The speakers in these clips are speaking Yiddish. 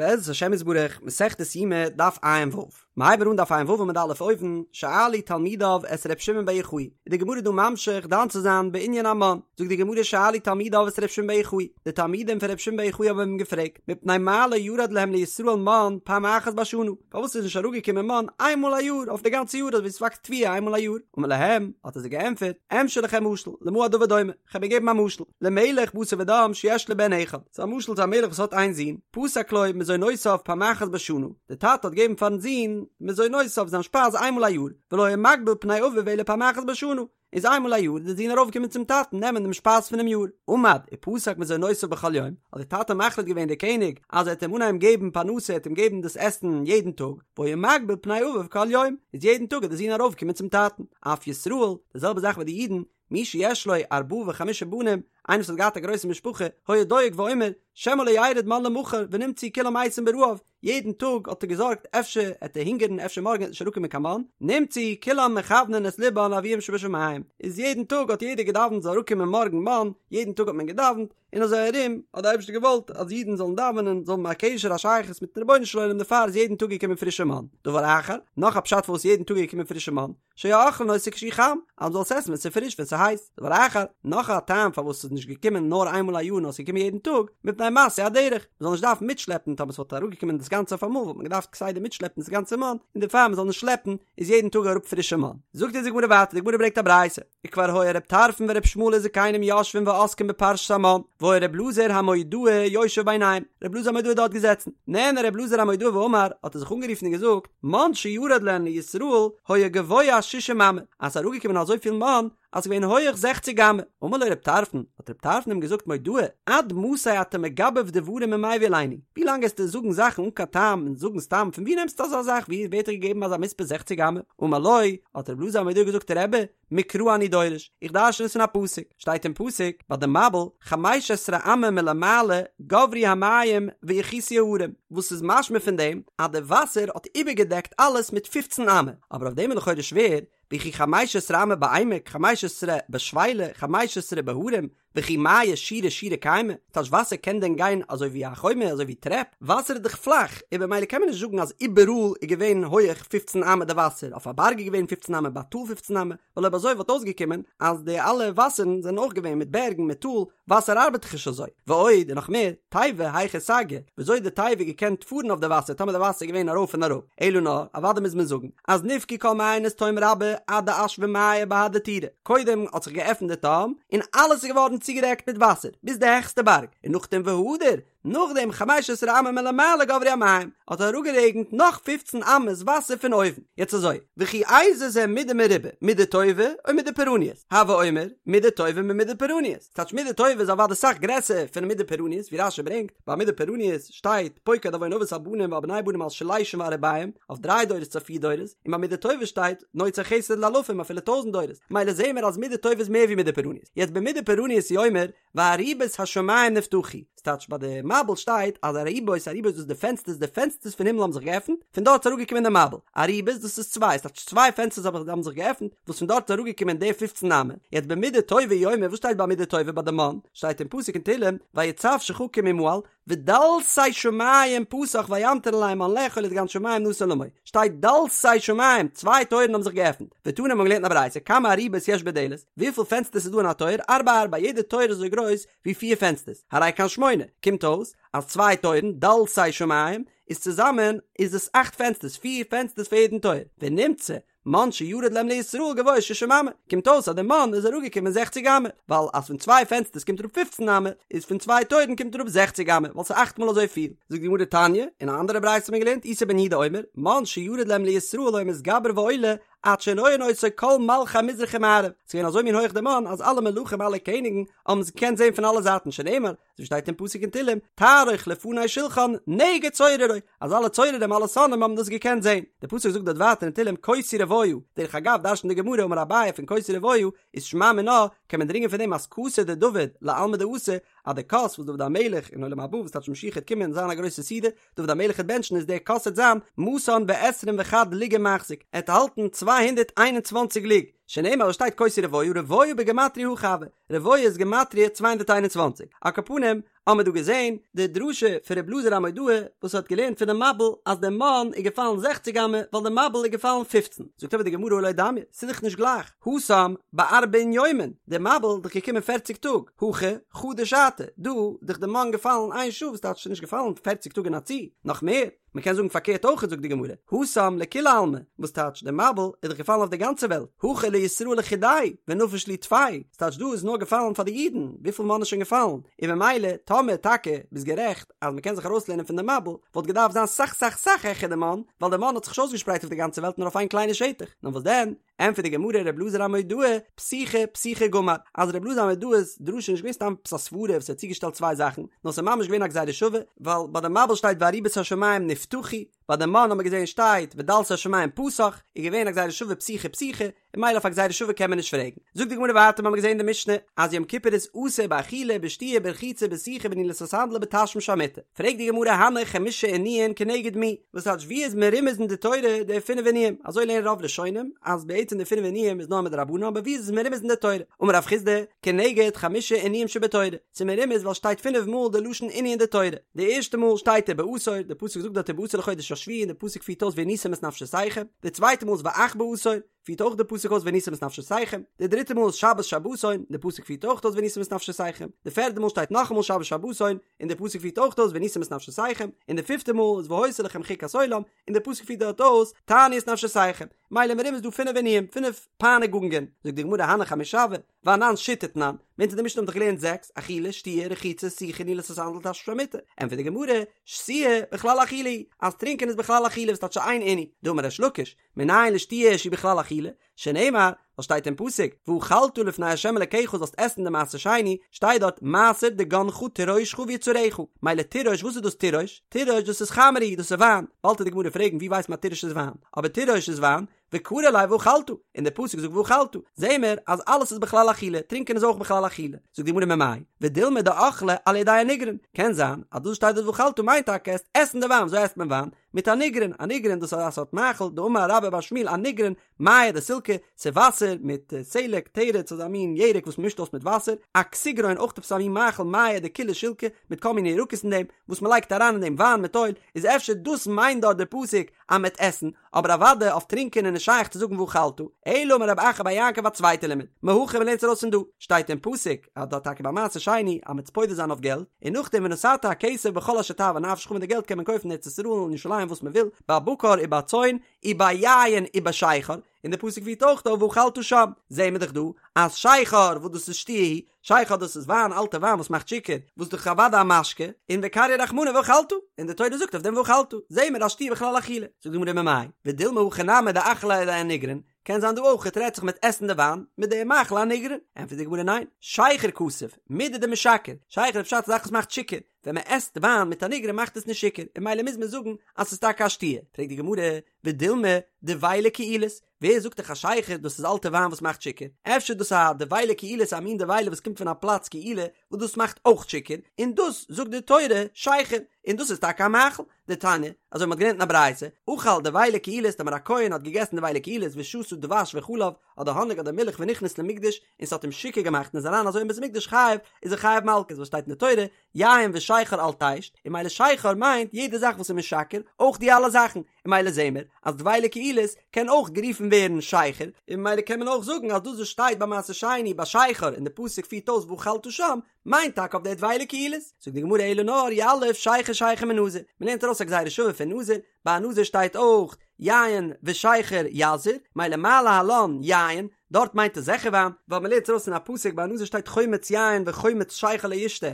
בעזרת השם יתברך, מסכת יומא, דף ע"ו. מ'הייבן אן דף ע"ו עמוד א' אויבן, שאלו תלמידיו את ר' שמעון בר יוחאי, איז די גמרא דא ממשיך דן צו זיין בענין המן, זאגט די גמרא שאלו תלמידיו את ר' שמעון בר יוחאי, די תלמידים פון ר' שמעון בר יוחאי האבן אים געפרעגט, מפני מה לא ירד להם לישראל מן פעם אחת בשנה, פארוואס איז נישט אראפגעקומען מן איין מאל א יאר אויף די גאנצע יאר אזוי ווי ס'וואקסט תבואה איין מאל א יאר, אמר להם, האט ער זיי געענטפערט, אמשול לכם משל, למה הדבר דומה? כ'וועל געבן א משל, למלך בשר ודם שיש לו בן אחד, ס'איז א משל צו א מלך וואס האט איין זון, פסק לו מזונותיו פעם אחת בשנה, די טאטע האט געגעבן פארן זון מזונותיו זיין שפייז איינמאל א יאר, ולא היה מקביל פני אביו אלא פעם אחת בשנה, איז איינמאל א יאר איז די זון ארויפגעקומען צום טאטן נעמען דעם שפייז פונעם יאר, עמד ופסק מזונותיו בכל יום, האט די טאטע מחליט געווען דער קעניג אז ער וועט אים אנהייבן געבן פרנסה ער וועט אים געבן דאס עסן יעדן טאג, והיה מקביל פני אביו כל יום, איז יעדן טאג איז די זון ארויפגעקומען צום טאטן, אף ישראל, די זעלבע זאך ביי די אידן, מי שיש לו ארבעה וחמישה בנים, איינער וואס האט געהאט א גרויסע משפחה, היה דואג ואומר, שמא לא ירד מן למחר ונמצאו כולם מתים ברעב, יעדן טאג האט ער געזארגט אפשר עט ער הונגערן אפשר מארגן עט נישט אראפקומען קיין מן, נמצאו כולם מכוונין את לבן לאביהם שבשמים, איז יעדן טאג האט יעדער געדאווענט זאל אראפקומען מארגן מן, יעדן טאג האט מען געדאווענט, און אזוי ארום האט דער אייבערשטער געוואלט אז אידן זאלן דאווענען, זאלן האבן א קשר א שייכות מיטן רבונו של עולם דערפאר איז יעדן טאג געקומען פרישע מן. דבר אחר, נאך א פשט פארוואס יעדן טאג איז געקומען פרישע מן, שהיו אוכלין אותו כשהוא חם, אז מ'זאל עס עסן ווען ס'איז פריש ווען ס'איז הייס. דבר אחר, נאך א טעם פארוואס ס'איז נישט געקומען נאר איינמאל א יאר נאר ס'איז געקומען יעדן טאג, מפני משאוי הדרך, מ'זאל נישט דארפן מיטשלעפן, טאמער ס'וואלט אראפגעקומען דאס גאנצע אויף אמאל וואלט מען געדארפט כסדר מיטשלעפן דאס גאנצע מן, און דערפאר מ'זאל נישט שלעפן איז יעדן טאג אראפ פרישע מן. זאגט אונז די גמרא ווייטער, די גמרא ברענגט א ברייתא, וכבר היה ר' טרפון ור' ישמעאל וזקנים יושבים ועוסקים בפרשת המן, והיה ר' אלעזר המודעי יושב ביניהם, ר' אלעזר המודעי איז דארט געזעצן, נענה ר' אלעזר המודעי ואמר, האט ער זיך אנגערופן און געזאגט, מן שירד להן לישראל היה גבוה שישים אמה, אז ס'איז אראפגעקומען אזויפיל מן אז ס'איז געווען הויעך זעכציג אמה. אמר לו ר' טרפון, האט ר' טרפון אים געזאגט מודעי, עד מתי אתה מגבב דברים ומביא עלינו, ווי לאנג עסטו זאגן זאכן אן קיין טעם און זאגן סתם, פון ווי נעמסטו אזא זאך, ווי ווערט דיר געגעבן אזא מספר זעכציג אמה? אמר לו, האט ר' אלעזר המודעי געזאגט רבי, מקרא אני דורש, איך דרשן עס פון א פסוק, שטייט אין פסוק ביי די מבול, חמש עשרה אמה מלמעלה גברו המים ויכסו ההרים, וואס איז משמע פון דעם אז די וואסער האט איבערגעדעקט אלעס מיט פופצן אמה, אבער אויף דעם איז לכאורה שווער, וכי חמש עשרה אמה בעמק, חמש עשרה בשפלה, חמש עשרה בהרים, וכי מיא שורה שורה קיימי, טייטש וואסער קען דען גיין אזוי ווי א חומה אזוי ווי טרעפ? וואסער איז דאך פלאך, און במילא קען מען נישט זאגן אז איבעראל איז געווען הויעך פופצן אמה די וואסער, אויף א בארג איז געווען פופצן אמה ביי א טאל פופצן אמה, ווייל אויב אזוי וואלט אויסגעקומען אז די אלע וואסערן זענען אויך געווען מיט בערגן מיט טאל, וואסער ארבעט דאך נישט אזוי. ועוד, און נאך מער, תיבה היכי סגיא, וויאזוי האט די תיבה געקענט פארן אויף די וואסער טאמער די וואסער איז געווען ארויף און אראפ? אלא נאר, אוודאי מוז מען זאגן, אז נבקעו כל מעיינות תהום רבה עד דאשוו מיא בהדי טורי, קודם האט זיך געעפנט די תהום און אלעס איז געווארן צוגעדעקט מיט וואסער ביז די העכסטע בארג, און נאכדעם והדר, נאכדעם חמש עשרה אמה מלמעלה גברו המים, האט אראפגערעגנט נאך פופצן אמות וואסער פון אויבן, יעצט אזוי, וכי איזה זה מידה מרובה, מידה טובה או מידה פורעניות, הוי אומר, מידה טובה ממידה פורעניות, ס'טייטש מידה טובה איז אוודאי סאך גרעסער פון מידה פורעניות, ווי רש"י ברענגט, ביי מידה פורעניות שטייט פוקד עון אבות על בנים ועל בני בנים על שלשים ועל רבעים, אויף דריי דורות צו פיר דורות, און ביי מידה טובה שטייט נוצר חסד לאלפים אפילו טויזנט דורות, מילא זעהן מיר אז מידה טובה איז מער ווי מידה פורעניות, יעצט במידה פורעניות הוא אומר וארובות השמים נפתחו, ס'טייטש ביי די מבול שטייט אז ארובות ארובות דאס איז די פענסטערס די פענסטערס פון הימל האבן זיך געעפנט, פון דארט איז אראפגעקומען די מבול, ארובות דאס איז צוויי ס'טייטש צוויי פענסטערס האבן זיך געעפנט וואס פון דארט איז אראפגעקומען די פופצן אמה, יעצט במידה טובה הוא אומר וואס שטייט ביי מידה טובה ביי די מן? שטייט אין פסוק אין תהלים ויצו שחקים ממעל ודלתי שמים פתח וימטר עליהם מן לאכול ודגן שמים נתן למו, שטייט דלתי שמים, צוויי טויערן האבן זיך געעפנט, ותנא מ'האבן געלערנט אין א ברייתא כמה ארובות יש בדלת, וויפיל פענסטערס איז דא אין א טויער, ארבע ארבע, יעדע טויער איז אזוי גרויס ווי פיר פענסטערס, הרי כאן שמונה, קומט אויס אז צוויי טויערן, דלתי שמים, איז צוזאמען איז עס אכט פענסטערס, פיר פענסטערס פאר יעדן טויער, ונמצא, מן שירד להם לישראל גבוה שישים אמה, קומט אויס אז די מן איז אראפגעקומען זעכציג אמה, ווייל אז פון צוויי פענסטערס קומט אראפ פופצן אמה, איז פון צוויי טויערן קומט אראפ זעכציג אמה, ווייל ס'איז אכט מאל אזוי פיל. זאגט די גמרא תניא, אין א אנדערע ברייתא האט מען געלערנט איסי בן יהודה אומר, מן שירד להם לישראל היה מתגבר ועולה עד שהיו רואין אותו כל מלכי מזרח ומערב, ס'איז געווען אזוי מין הויך די מן אז אלע מלכים אלע קעניגן האבן עס געקענט זען פון אלע זייטן שנאמר, אזוי שטייט אין פסוק אין תהלים, תערוך לפני שלחן נגד צוררי, אז אלע צוררים אלע שונאים האבן דאס געקענט זען. דער פסוק זאגט דארט ווייטער אין תהלים כוסי רוויה, דרך אגב דרש'נט די גמרא אמר אביי פון כוסי רוויה איז שמע מינה, קען מען דרינגען פון דעם אז כסא דדוד לעלמא דאתי, אז די כוס וואס דוד המלך אין עולם הבא וואס טייטש משיח העט קומען און זיין א גרויסע סעודה, דוד המלך העט בענטשן איז דער כוס העט זיין מאתן ועשרים וחד לוגא מחזיק, ער העט האלטן 221 לוג. שנאמר וואס שטייט כה תהיה רבוה, רבוה בגימטריא הכי הוי, רבוה איז גימטריא 221, על כל פנים, האמער דא געזען די דרשה פון ר' אלעזר המודעי וואס האט געלערנט פונעם מבול אז די מן איז געפאלן זעכציג אמה ווייל די מבול איז געפאלן פופצן, זאגט אבער די גמרא הא לא דמיא, ס'איז דאך נישט גלייך, התם בארבעין יומין, די מבול איז דאך געקומען פערציג טאג, הכא חדא שעתא, דא איז דאך די מן געפאלן איין שעה וואס טייטש ס'איז נישט געפאלן פערציג טאג אין א צי, נאך מער, מען קען זאגן פארקערט אויך זאגט די גמרא, התם לכולי עלמא, וואס טייטש די מבול איז דאך געפאלן אויף די גאנצע וועלט, הכא לישראל לחודייהו ונפיש להו טפי, ס'טייטש דא איז נאר געפאלן פאר די אידן, וויפיל מן איז שוין געפאלן, און ממילא טאמער טאקע ביסט גערעכט אז מען קען זיך ארויסלערנען פון די מבול, וואלט געדארפט זיין סאך סאך סאך העכער די מן, ווייל די מן האט זיך נישט אויסגעשפרייט אויף די גאנצע וועלט נאר אויף איין קליינע שטח, נאר וואס דען? ענטפערט די גמרא ר' אלעזר המודעי, פתיחה פתיחה גמר, אז ר' אלעזר המודעי'ס דרשה איז נישט געווען סתם עפעס א סברה וואס ער האט צוגעשטעלט צוויי זאכן, נאר ס'איז ממש געווען א גזירה שווה, ווייל ביי די מבול שטייט וארובות השמים נפתחו, ביי די מן האט מען געזען שטייט ודלתי השמים פתח, איז געווען א גזירה שווה פתיחה פתיחה, און ממילא אויף א גזירה שווה קען מען נישט פרעגן. זאגט די גמרא ווייטער מ'האמיר געזען אין די משנה אז יום כיפור איז אסור באכילה בשתיה ברחיצה בסיכה בנעילת הסנדל ובתשמיש המיטה, פרעגט די גמרא הני חמשה עינויין כנגד מי, וואס טייטש ווי איז מרומז אין די תורה די פינף עינויים, אזוי לערנען רוב ראשונים אז בעצם די פינף עינויים איז נאר מדרבנן אבער ווי איז עס מרומז אין די תורה, אמר רב חסדא, כנגד חמשה עינויים שבתורה, ס'איז מרומז ווייל שטייט פינף מאל די לשון עינוי אין די תורה, די ערשטע מאל שטייט ובעשור, די פסוק זאגט דארט ובעשור לחודש השביעי און די פסוק פירט אויס ועניתם את נפשותיכם, די צווייטע מאל איז ואך בעשור, פירט אויך די פסוק אויס ועניתם את נפשותיכם, די דריטע מאל איז שבת שבתון, די פסוק פירט אויך אויס ועניתם את נפשותיכם, די פערדע מאל שטייט נאכאמאל שבת שבתון, און די פסוק פירט אויך אויס ועניתם את נפשותיכם, און די פיפטע מאל איז והיתה לכם חוקת עולם, און די פסוק פירט דארט אויס תענו את נפשותיכם, מילא מרומז דא פינף עינויים, פינף פייניגונגען, זאגט די גמרא הני חמשה הוו, ואנן שיתא תנן, מיר אין די משנה האבן דאך געלערנט זעקס, אכילה, שתיה, רחיצה, סיכה, נעילת הסנדל, תשמיש המיטה, ענטפערט די גמרא, שתיה, בכלל אכילה היא, אז טרינקען איז בכלל אכילה וואס טייטש איין עינוי, דאמר ריש לקיש, מנין לשתיה שהיא בכלל אכילה, שנאמר, וואס שטייט אין פסוק, ואכלת לפני ה' אלקיך זאלסט עסן די מעשר שני, שטייט דארט, מעשר דגנך תירושך ויצהרך, מילא תירוש, וואס איז דאס תירוש? תירוש דאס איז חמרא הוא, דאס איז וויין, באלד וועט די גמרא פרעגן ווי ווייסט מען אז תירוש איז וויין, אבער תירוש איז וויין, וקרי ליה ואכלת, און דער פסוק זאגט ואכלת, זעהן מיר אז אלעס איז בכלל אכילה, טרינקען איז אויך בכלל אכילה, זאגט די גמרא ממאי, ודילמא דאכלה על ידי אניגרון, קען זיין אז דאס שטייט דארט ואכלת מיינט טאקע עסט עסן די וויין, וויאזוי עסט מען וויין? מיט אניגרון, אניגרון דאס איז א סארט מאכל, דאמר רבה בר שמואל אניגרון, מיא דסילקא, ס'איז וואסער מיט סלק, תרד, ס'איז א מין ירק וואס מ'מישט אויס מיט וואסער, אכסיגרון אויך עפעס א מין מאכל מיא דכולהו שילקי, מיט כל מיני ירקות אין דעם, וואס מ'לייגט אריין אין דעם וויין מיט אויל, איז אפשר דאס מיינט דארט דער פסוק אז מ'עט עסן, אבער אוודאי אויף טרינקען איז נישט שייך צו זאגן ואכלת, אלא אמר רב אחא בר יעקב א צווייטע לימוד, מהכא מ'לערנט עס ארויס פון דא, שטייט אין פסוק אז דארט טאקע ביי מעשר שני אז מ'עט פודה זיין אויף געלט, און נאכדעם ונתת הכסף בכל אשר תאוה נפשך מיט די געלט קען מען קויפן אין ארץ ישראל און ירושלים וואס מ'וויל, בבקר ובצאן, וביין ובשכר, און די פסוק פירט אויך אויס ואכלת שם, זעהן מיר דאך דא אז שכר וואס דאס איז שתיה היא, שכר דאס איז וויין, אלטע וויין וואס מאכט שיכור, וואס דאך אוודאי א משקה, און וקרייה רחמנא ואכלת, און די תורה זאגט אויף דעם ואכלת, זעהן מיר אז שתיה בכלל אכילה, זאגט די גמרא ממאי, ודילמא הכא נמי דאכלה על ידי אניגרון, קען זיין דא אויך רעדט זיך מיט עסן די וויין מיט די מאכל אניגרון, ענטפערט די גמרא ניין, שכר כתיב, מידי דמשכר, שכר איז פשט א זאך וואס מאכט שיכור, ווען מען עסט וויין מיט אניגרון מאכט עס נישט שיכור, און ממילא מוז מען זאגן אז ס'איז טאקע א שתיה, פרעגט די גמרא, ודילמא דבילה קעילית, ווער זאגט דיך אז שכר דאס איז אלטע וויין וואס מאכט שיכור? אפשר דאס א דבילה קעילית א מין דבילה וואס קומט פון א פלאץ קעילה וואס דאס מאכט אויך שיכור, און דאס זאגט די תורה שכר, און דאס איז טאקע א מאכל, דתניא, אזוי מ'האט געלערנט אין א ברייתא, אכל דבילה קעילית טאמער א כהן האט געגעסן דבילה קעילית ושתה דבש וחלב, אדער האניג אדער מילך ונכנס למקדש, און ס'האט אים שיכור געמאכט און איז אריין אזוי אין בית המקדש חייב, איז ער חייב מלקות, וואס שטייט אין די תורה, יין ושכר אל תשת, און ממילא שכר מיינט יעדע זאך וואס איז משכר, אויך די אלע זאכן, און ממילא זעהן מיר אז דבילה קעילית קען אויך גערופן ווערן שכר, און ממילא קען מען אויך זאגן אז דאס וואס שטייט ביי מעשר שני ביי שכר און די פסוק פירט אויס ואכלת שם, מיינט טאקע אויף די דבילה קעילית. זאגט די גמרא אלא נאר יליף שכר שכר מנזיר, מען לערנט ארויס א גזירה שווה פון נזיר, ביי א נזיר שטייט אויך יין ושכר יזיר, ממילא מה להלן יין, דארט מיינט עס זיכער וויין, ווייל מען לערנט ארויס אין א פסוק ביי א נזיר שטייט חומץ יין וחומץ שכר לא ישתה,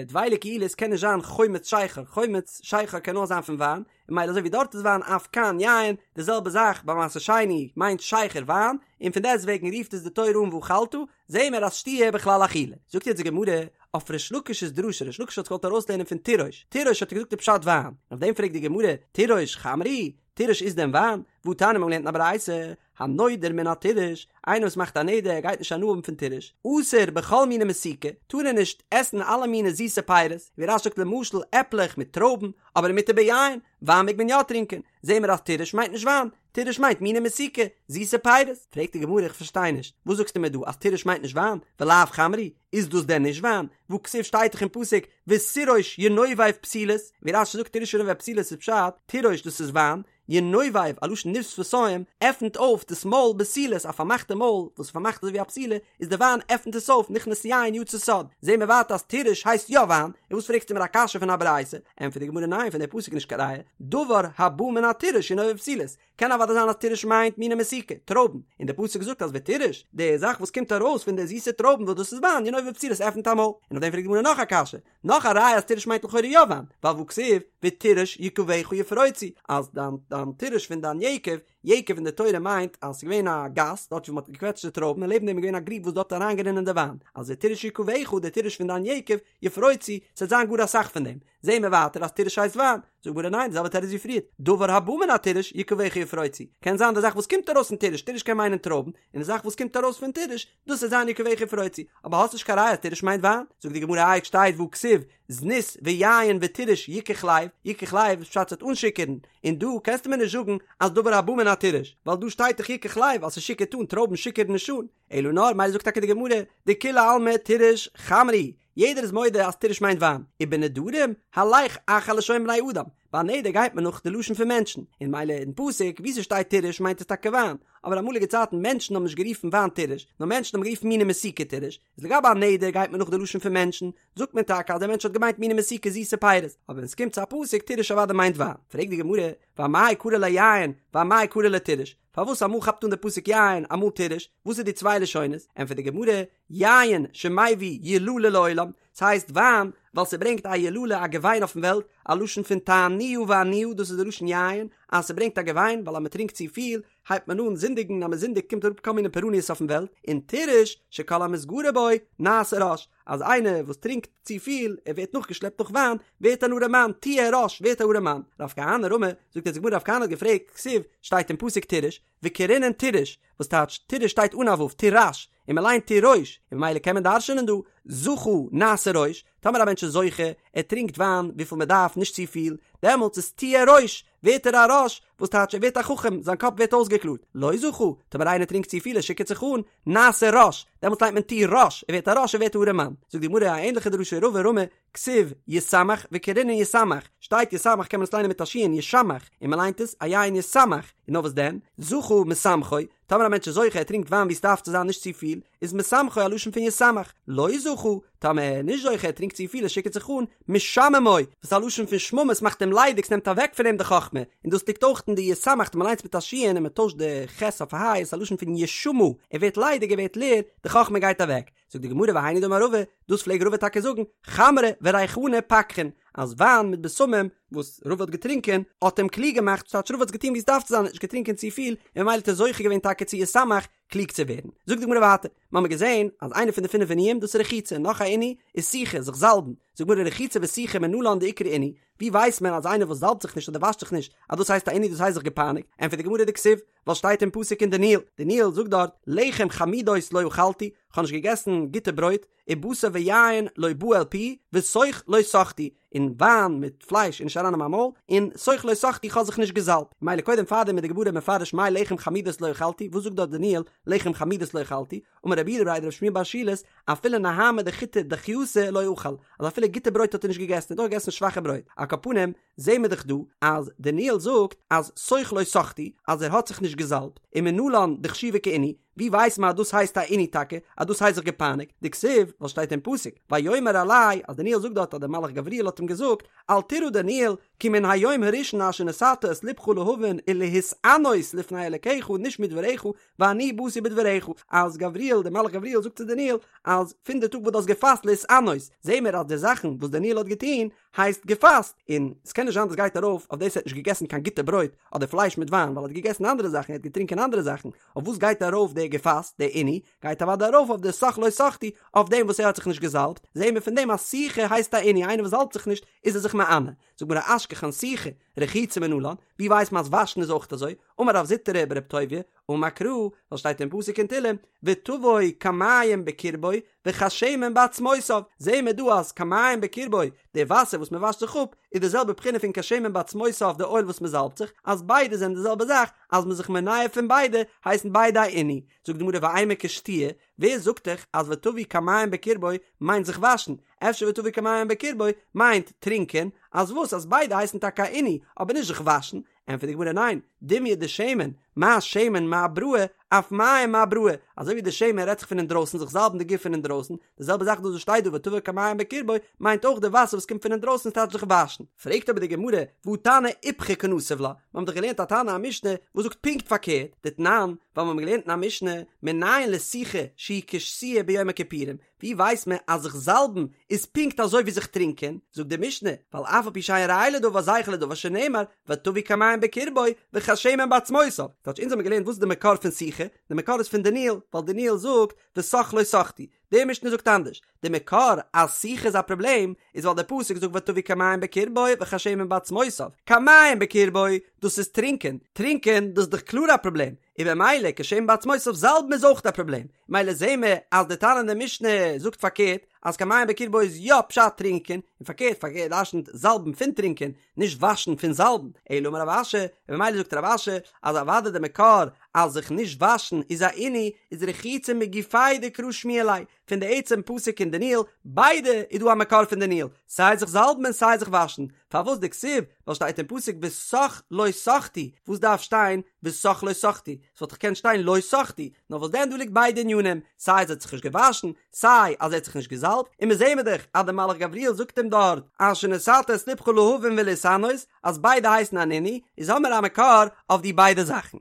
דבילה קעילית קען נישט זיין חומץ שכר, חומץ שכר קען נאר זיין פון וויין, און ממילא אזוי ווי דארט איז וויין אף כאן יין, די זעלבע זאך ביי מעשר שני מיינט שכר וויין, און פון דעסט וועגן רופט עס די תורה אן ואכלת, זעהן מיר אז שתיה בכלל אכילה. זאגט יעצט די גמרא אויף ריש לקיש'ס דרשה, ריש לקיש האט זיך געוואלט ארויסלערנען פון תירוש, תירוש האט ער געזאגט די פשט וויין, און אויף דעם פרעגט די גמרא, תירוש חמרא הוא? תירוש איז דען וויין? והתניא מ'האט געלערנט אין א ברייתא, הנודר מן התירוש, איינער וואס מאכט א נדר ער גייט נישט הנאה האבן פון תירוש, אסור בכל מיני מתיקה, טאר ער נישט עסן אלע מיני זיסע פירות, ווי רש"י זאגט למשל עפלעך מיט טרויבן, אבער ומותר ביין, וויין מעג מען יא טרינקען, זעהן מיר אז תירוש מיינט נישט וויין, תירוש מיינט מיני מתיקה, זיסע פירות. פרעגט די גמרא איך פארשטיי נישט, וואס זאגסטו מיר דא אז תירוש מיינט נישט וויין, ולאו חמרא הוא, איז דאס דען נישט וויין? והכתיב שטייט דאך אין פסוק ותירוש ינובב פתילות, ווי רש"י זאגט תירוש ינובב פתילות איז פשט, תירוש דאס איז וויין, ינובב, א לשון ניב שפתים, עפנט אויף דאס מויל בתילות, א פארמאכטע מויל וואס איז פארמאכט אזוי ווי א פתילה, איז די וויין עפנט עס אויף, נכנס יין יצא סוד, זעהן מיר ווייטער אז תירוש הייסט יא וויין, און וואס פרעגסטו מיר א קשיא פון א ברייתא? ענטפערט די גמרא ניין פון די פסוק נישט קיין ראיה, דבר הבא מן התירוש ינובב פתילות, קען אוודאי זיין אז תירוש מיינט מיני מתיקה, טרויבן, און די פסוק זאגט אז ותירוש, די זאך וואס קומט ארויס פון די זיסע טרויבן וואס דאס איז וויין, ינובב פתילות עפנט א מויל, און אויף דעם פרעגט די גמרא נאך א קשיא, נאך א ראיה אז תירוש מיינט לכאורה יא וויין, ווייל והכתיב ותירוש יקביך יפרוצו, אז דיין דיין תירוש פון דיין יקב, יקב אין די תורה מיינט אז ס'איז געווען א גאס דארט ווי מ'האט געקוועטשט די טרויבן און לעבן דעם איז געווען א גריב וואס דארט איז אריינגערינען די וויין, אז ותירוש יקביך די תירוש פון דיין יקב, יפרוצו, ס'וועט זיין גאר אסאך פון דעם. זעהן מיר ווייטער אז תירוש הייסט וויין. זאגט די גמרא ניין, די זעלבע תירוץ ווי פריער, דבר הבא מן התירוש יקביך יפרוצו, קען זיין די זאך וואס קומט ארויס פון תירוש, תירוש קען מיינען טרויבן, און די זאך וואס קומט ארויס פון תירוש, דאס וועט זיין יקביך יפרוצו, אבער האסט נישט קיין ראיה אז תירוש מיינט וויין, זאגט די גמרא איי שטייט והכתיב זנות ויין ותירוש יקח לב, יקח לב איז פשט ס'וועט אנשיכור'ן, און דא קענסטו מיר נישט זאגן אז דבר הבא מן התירוש, ווייל דא שטייט דאך יקח לב אז ס'שיכור'ט אן, טרויבן שיכור'ן נישט אן, אלא נאר מילא זאגט טאקע די גמרא, דכולי עלמא תירוש חמרא הוא, יעדער איז מודה אז תירוש מיינט וויין, ובנדרים הלך אחר לשון בני אדם, ביי א נדר גייט מען נאך די לשון פון מענטשן, און מילא אין פסוק וואו ס'שטייט תירוש מיינט עס טאקע וויין, אבער אמאליגע צייטן מענטשן האבן נישט גערופן וויין תירוש, נאר מענטשן האבן גערופן מיני מתיקה תירוש, איז לגבי א נדר גייט מען נאך די לשון פון מענטשן, זאגט מען טאקע אז דער מענטש האט געמיינט מיני מתיקה זיסע פירות, אבער ווען ס'קומט צו א פסוק תירוש אוודאי מיינט וויין, פרעגט די גמרא, ואמאי קרי ליה יין, ואמאי קרי ליה תירוש, פארוואס אמאל כאפט אן די פסוק יין אמאל תירוש, וואס איז די צוויי לשונות? ענטפערט די גמרא, יין שמביא יללה לעולם, ס'הייסט וויין ווייל ס'ברענגט א יללה א געוויין אויפן וועלט, א לשון פון תענוה ועניה דאס איז די לשון יין, אז ס'ברענגט א געוויין ווייל אז מ'טרינקט צופיל הייבט מען אן זינדיגן, אז מ'זינדיגט קומט אראפ כל מיני פורעניות אויפן וועלט, און תירוש שכל המתגרה בו נעשה רש, אז איינער וואס טרינקט צופיל ער ווערט נאכגעשלעפט דורך וויין ווערט אן ארעמאן, תהיה רש ווערט א ארעמאן. רב כהנא רמי, זאגט יעצט די גמרא רב כהנא האט געפרעגט, כתיב, שטייט אין פסוק תירוש, וקרינן תירוש, וואס טייטש תירוש שטייט אן א ו', תירש, און מען ליינט תירוש, און ממילא קען מען דרש'נען דא, זכה נעשה ראש, טאמער א מענטש איז זוכה, ער טרינקט וויין וויפיל מען דארף נישט צופיל, דעמאלטס איז תהיה ראש, ווערט ער א ראש, וואס טייטש ער ווערט א חכם, זיין קאפ ווערט אויסגעקלארט, לא זכה, טאמער איינער טרינקט צופיל ער שיכור'ט זיך אן, נעשה רש, דעמאלטס ליינט מען תירש, ער ווערט א רש ער ווערט א ארעמאן. זאגט די גמרא א ענליכע דרשה רבא רמי, כתיב ישמח וקרינן ישמח, שטייט ישמח קען מען עס ליינען מיט א שין ישמח, און מען ליינט עס א עין ישמח, און נאר וואס דען, זכה משמחו, טאמער א מענטש איז זוכה ער טרינקט וויין ווי עס דארף צו זיין נישט צופיל, איז משמחו א לשון פון ישמח, לא זכה, טאמער ער איז נישט זוכה ער טרינקט צופיל ער שיכור'ט זיך אן, משממו, וואס איז א לשון פון שממה עס מאכט אים ליידיג ס'נעמט אוועק פון אים די חכמה, און דאס ליגט אויך אין די ישמח מען ליינט עס מיט א שין און מען טוישט די ח' אויף א ה' איז א לשון פון ישמה, ער ווערט ליידיג ער ווערט לער, די חכמה גייט אוועק. זאגט די גמרא והיינו דאמר רבא, דאס פלעג רבא טאקע זאגן, חמרא וריחנא פקחין, אז וויין מיט בשמים וואס רבא האט געטרינקען האט אים קלוג געמאכט, ס'טייטש רבא האט עס געטון ווי עס דארף צו זיין, ער האט נישט געטרינקען צופיל, און ממילא האט ער זוכה געווען טאקע צו ישמח, קלוג צו ווערן. זאגט די גמרא ווייטער, מ'האמיר געזען אז איינע פון די פינף עינויים דאס איז רחיצה, נאך א עינוי איז סיכה, זיך זאלבן, זאגט די גמרא רחיצה וסיכה מנלן דאיקרי עינוי, ווי ווייסט מען אז איינער וואס זאלבט זיך נישט אדער וואשט זיך נישט אז דאס הייסט א עינוי דאס הייסט זיך געפייניגט, ענטפערט די גמרא דכתיב, ווייל שטייט אין פסוק אין דניאל, דניאל זאגט דארט, לחם חמודות לא אכלתי, כ'האב נישט געגעסן גוטע ברויט, ובשר ויין לא בא אל פי, וסוך לא סכתי, און וויין מיט פלייש איז נישט אריין אין מיין מויל, און סוך לא סכתי כ'האב זיך נישט געזאלבט. מילא קודם פארדעם איז די גמרא מפרש מאי לחם חמודות לא אכלתי, וואס זאגט דארט דניאל לחם חמודות לא אכלתי, אמר רב יהודה בריה דרב שמואל בר שילת, אפילו נהמא דחיטי דכייתא לא אכל, אז אפילו גוטע ברויט האט ער נישט געגעסן, ער האט נאר געגעסן שוואכע ברויט. על כל פנים, זעהן מיר דאך דא אז דניאל זאגט אז סוך לא סכתי אז ער האט זיך נישט געזאלבט, ומנלן דחשיבא כעינוי, ווי ווייסט מען אז דאס הייסט א עינוי טאקע, אז דאס הייסט זיך געפייניגט, דכתיב, וואס שטייט אין פסוק, ויאמר אלי, אז דניאל זאגט דארט אז דער מלאך גבריאל האט אים געזאגט, אל תירא דניאל, כי מן היום הראשון אשר נתת את לבך להבין ולהתענות לפני אלקיך נשמעו דבריך, ואני באתי בדבריך, אז גבריאל, דער מלאך גבריאל זאגט צו דניאל, אז פון די טאג וואס דו האסט געפאסט להתענות, זעהן מיר אז די זאכן וואס דניאל האט געטון, הייסט געפאסט, און ס'קען נישט זיין דאס גייט ארויף אויף דאס ער האט נישט געגעסן קיין גוטע ברויט אדער פלייש מיט וויין ווייל ער האט געגעסן אנדערע זאכן ער האט געטרינקען אנדערע זאכן, אויף וואס גייט ארויף די. געפאסט, די עינוי, גייט אוודאי ארויף אויף די סך לא סחטו, אויף דעם וואס ער האט זיך נישט געזאלבט, זעהן מיר פון דעם אז סיכה הייסט א עינוי, איינער וואס זאלבט זיך נישט איז ער זיך מענה. זאגט די גמרא אשכחן סיכה, רחיצה מנלן, ווי ווייסט מען אז וואשן איז אויך אזוי? אמר רב זוטרא ברב טוביה, אמר קרא, ווייל שטייט אין פסוק אין תהלים, ותבוא כמים בקרבו וכשמן בעצמותיו, זעהן מיר דא אז כמים בקרבו, די וואסער וואס מען וואשט זיך אפ, איז די זעלבע בחינה פון כשמן בעצמותיו די אויל וואס מען זאלבט זיך, אז ביידע זענען די זעלבע זאך, אז מען איז זיך מונע פון ביידע, הייסן ביידע א עינוי. זאגט די גמרא ואימא כשתיה, ווער זאגט דיך אז ותבוא כמים בקרבו מיינט זיך וואשן, אפשר ותבוא כמים בקרבו מיינט טרינקען, אז וואס אז ביידע הייסן טאקע א עינוי, אבער נישט זיך וואשן, ענטפערט די גמרא ניין, דומיא דשמן, מה שמן מאבראי, אף מים מאבראי, אזוי ווי די שמן רעדט זיך פון אינדרויסן זיך זאלבן די גוף פון אינדרויסן, די זעלבע זאך דאס וואס שטייט דא ותבוא כמים בקרבו מיינט אויך די וואסער וואס קומט פון אינדרויסן ס'טייטש זיך וואשן. פרעגט אבער די גמרא, והא תנא איפכא קנסיב לה, מיר האבן דאך געלערנט א תנא א משנה וואס זאגט פונקט פארקערט, דתנן, ווייל מיר האבן געלערנט אין א משנה, מנין לסיכה שהיא כשתיה ביום הכיפורים, ווי ווייסט מען אז זיך זאלבן איז פונקט אזוי ווי זיך טרינקען? זאגט די משנה, ווייל אף על פי שאין ראיה לדבר זכר לדבר שנאמר ותבוא כמים בקרבו וכשמן בעצמותיו. כאטש אונז האבן געלערנט וואס איז די מקור פון סיכה, די מקור איז פון דניאל, ווייל דניאל זאגט וסך לא סחטו, די משנה זאגט אנדערש, די מקור אז סיכה איז א פראבלעם איז ווייל די פסוק זאגט ותבוא כמים בקרבו וכשמן בעצמותיו, כמים בקרבו דאס איז טרינקען, טרינקען דאס איז דאך קלאר א פראבלעם, און במילא כשמן בעצמותיו זאלבן איז אויך א פראבלעם, מילא זעהן מיר אז די תנא אין די משנה זאגט פארקערט אז כמים בקרבו איז יא פשט טרינקען, און פארקערט פארקערט דרשנ'ט זאלבן פון טרינקען, נישט וואשן פון זאלבן, אלא אמר רב אשי, און במילא זאגט רב אשי אז אוודאי די מקור אז זיך נישט וואשן איז א עינוי איז רחיצה מגופיה דקרא שמיע ליה, פון די עצם פסוק אין דניאל, ביידע איז דא א מקור פון דניאל, סיי זיך זאלבן און סיי זיך וואשן, פארוואס דכתיב, ווייל שטייט אין פסוק וסך לא סחטו, וואס דארף שטיין וסך לא סחטו, ס'וואלט דאך געקענט שטיין לא סחטו, נאר וואס דען דא ליגט ביידע ענינים, סיי אז ער האט זיך נישט געוואשן, סיי אז ער האט זיך נישט געזאלבט, און מיר זעהן מיר דאך אז דער מלאך גבריאל זאגט אים דארט אשר נתת את לבך להבין ולהתענות, אז ביידע הייסן אן עינוי, איז האמיר א מקור אויף די ביידע זאכן.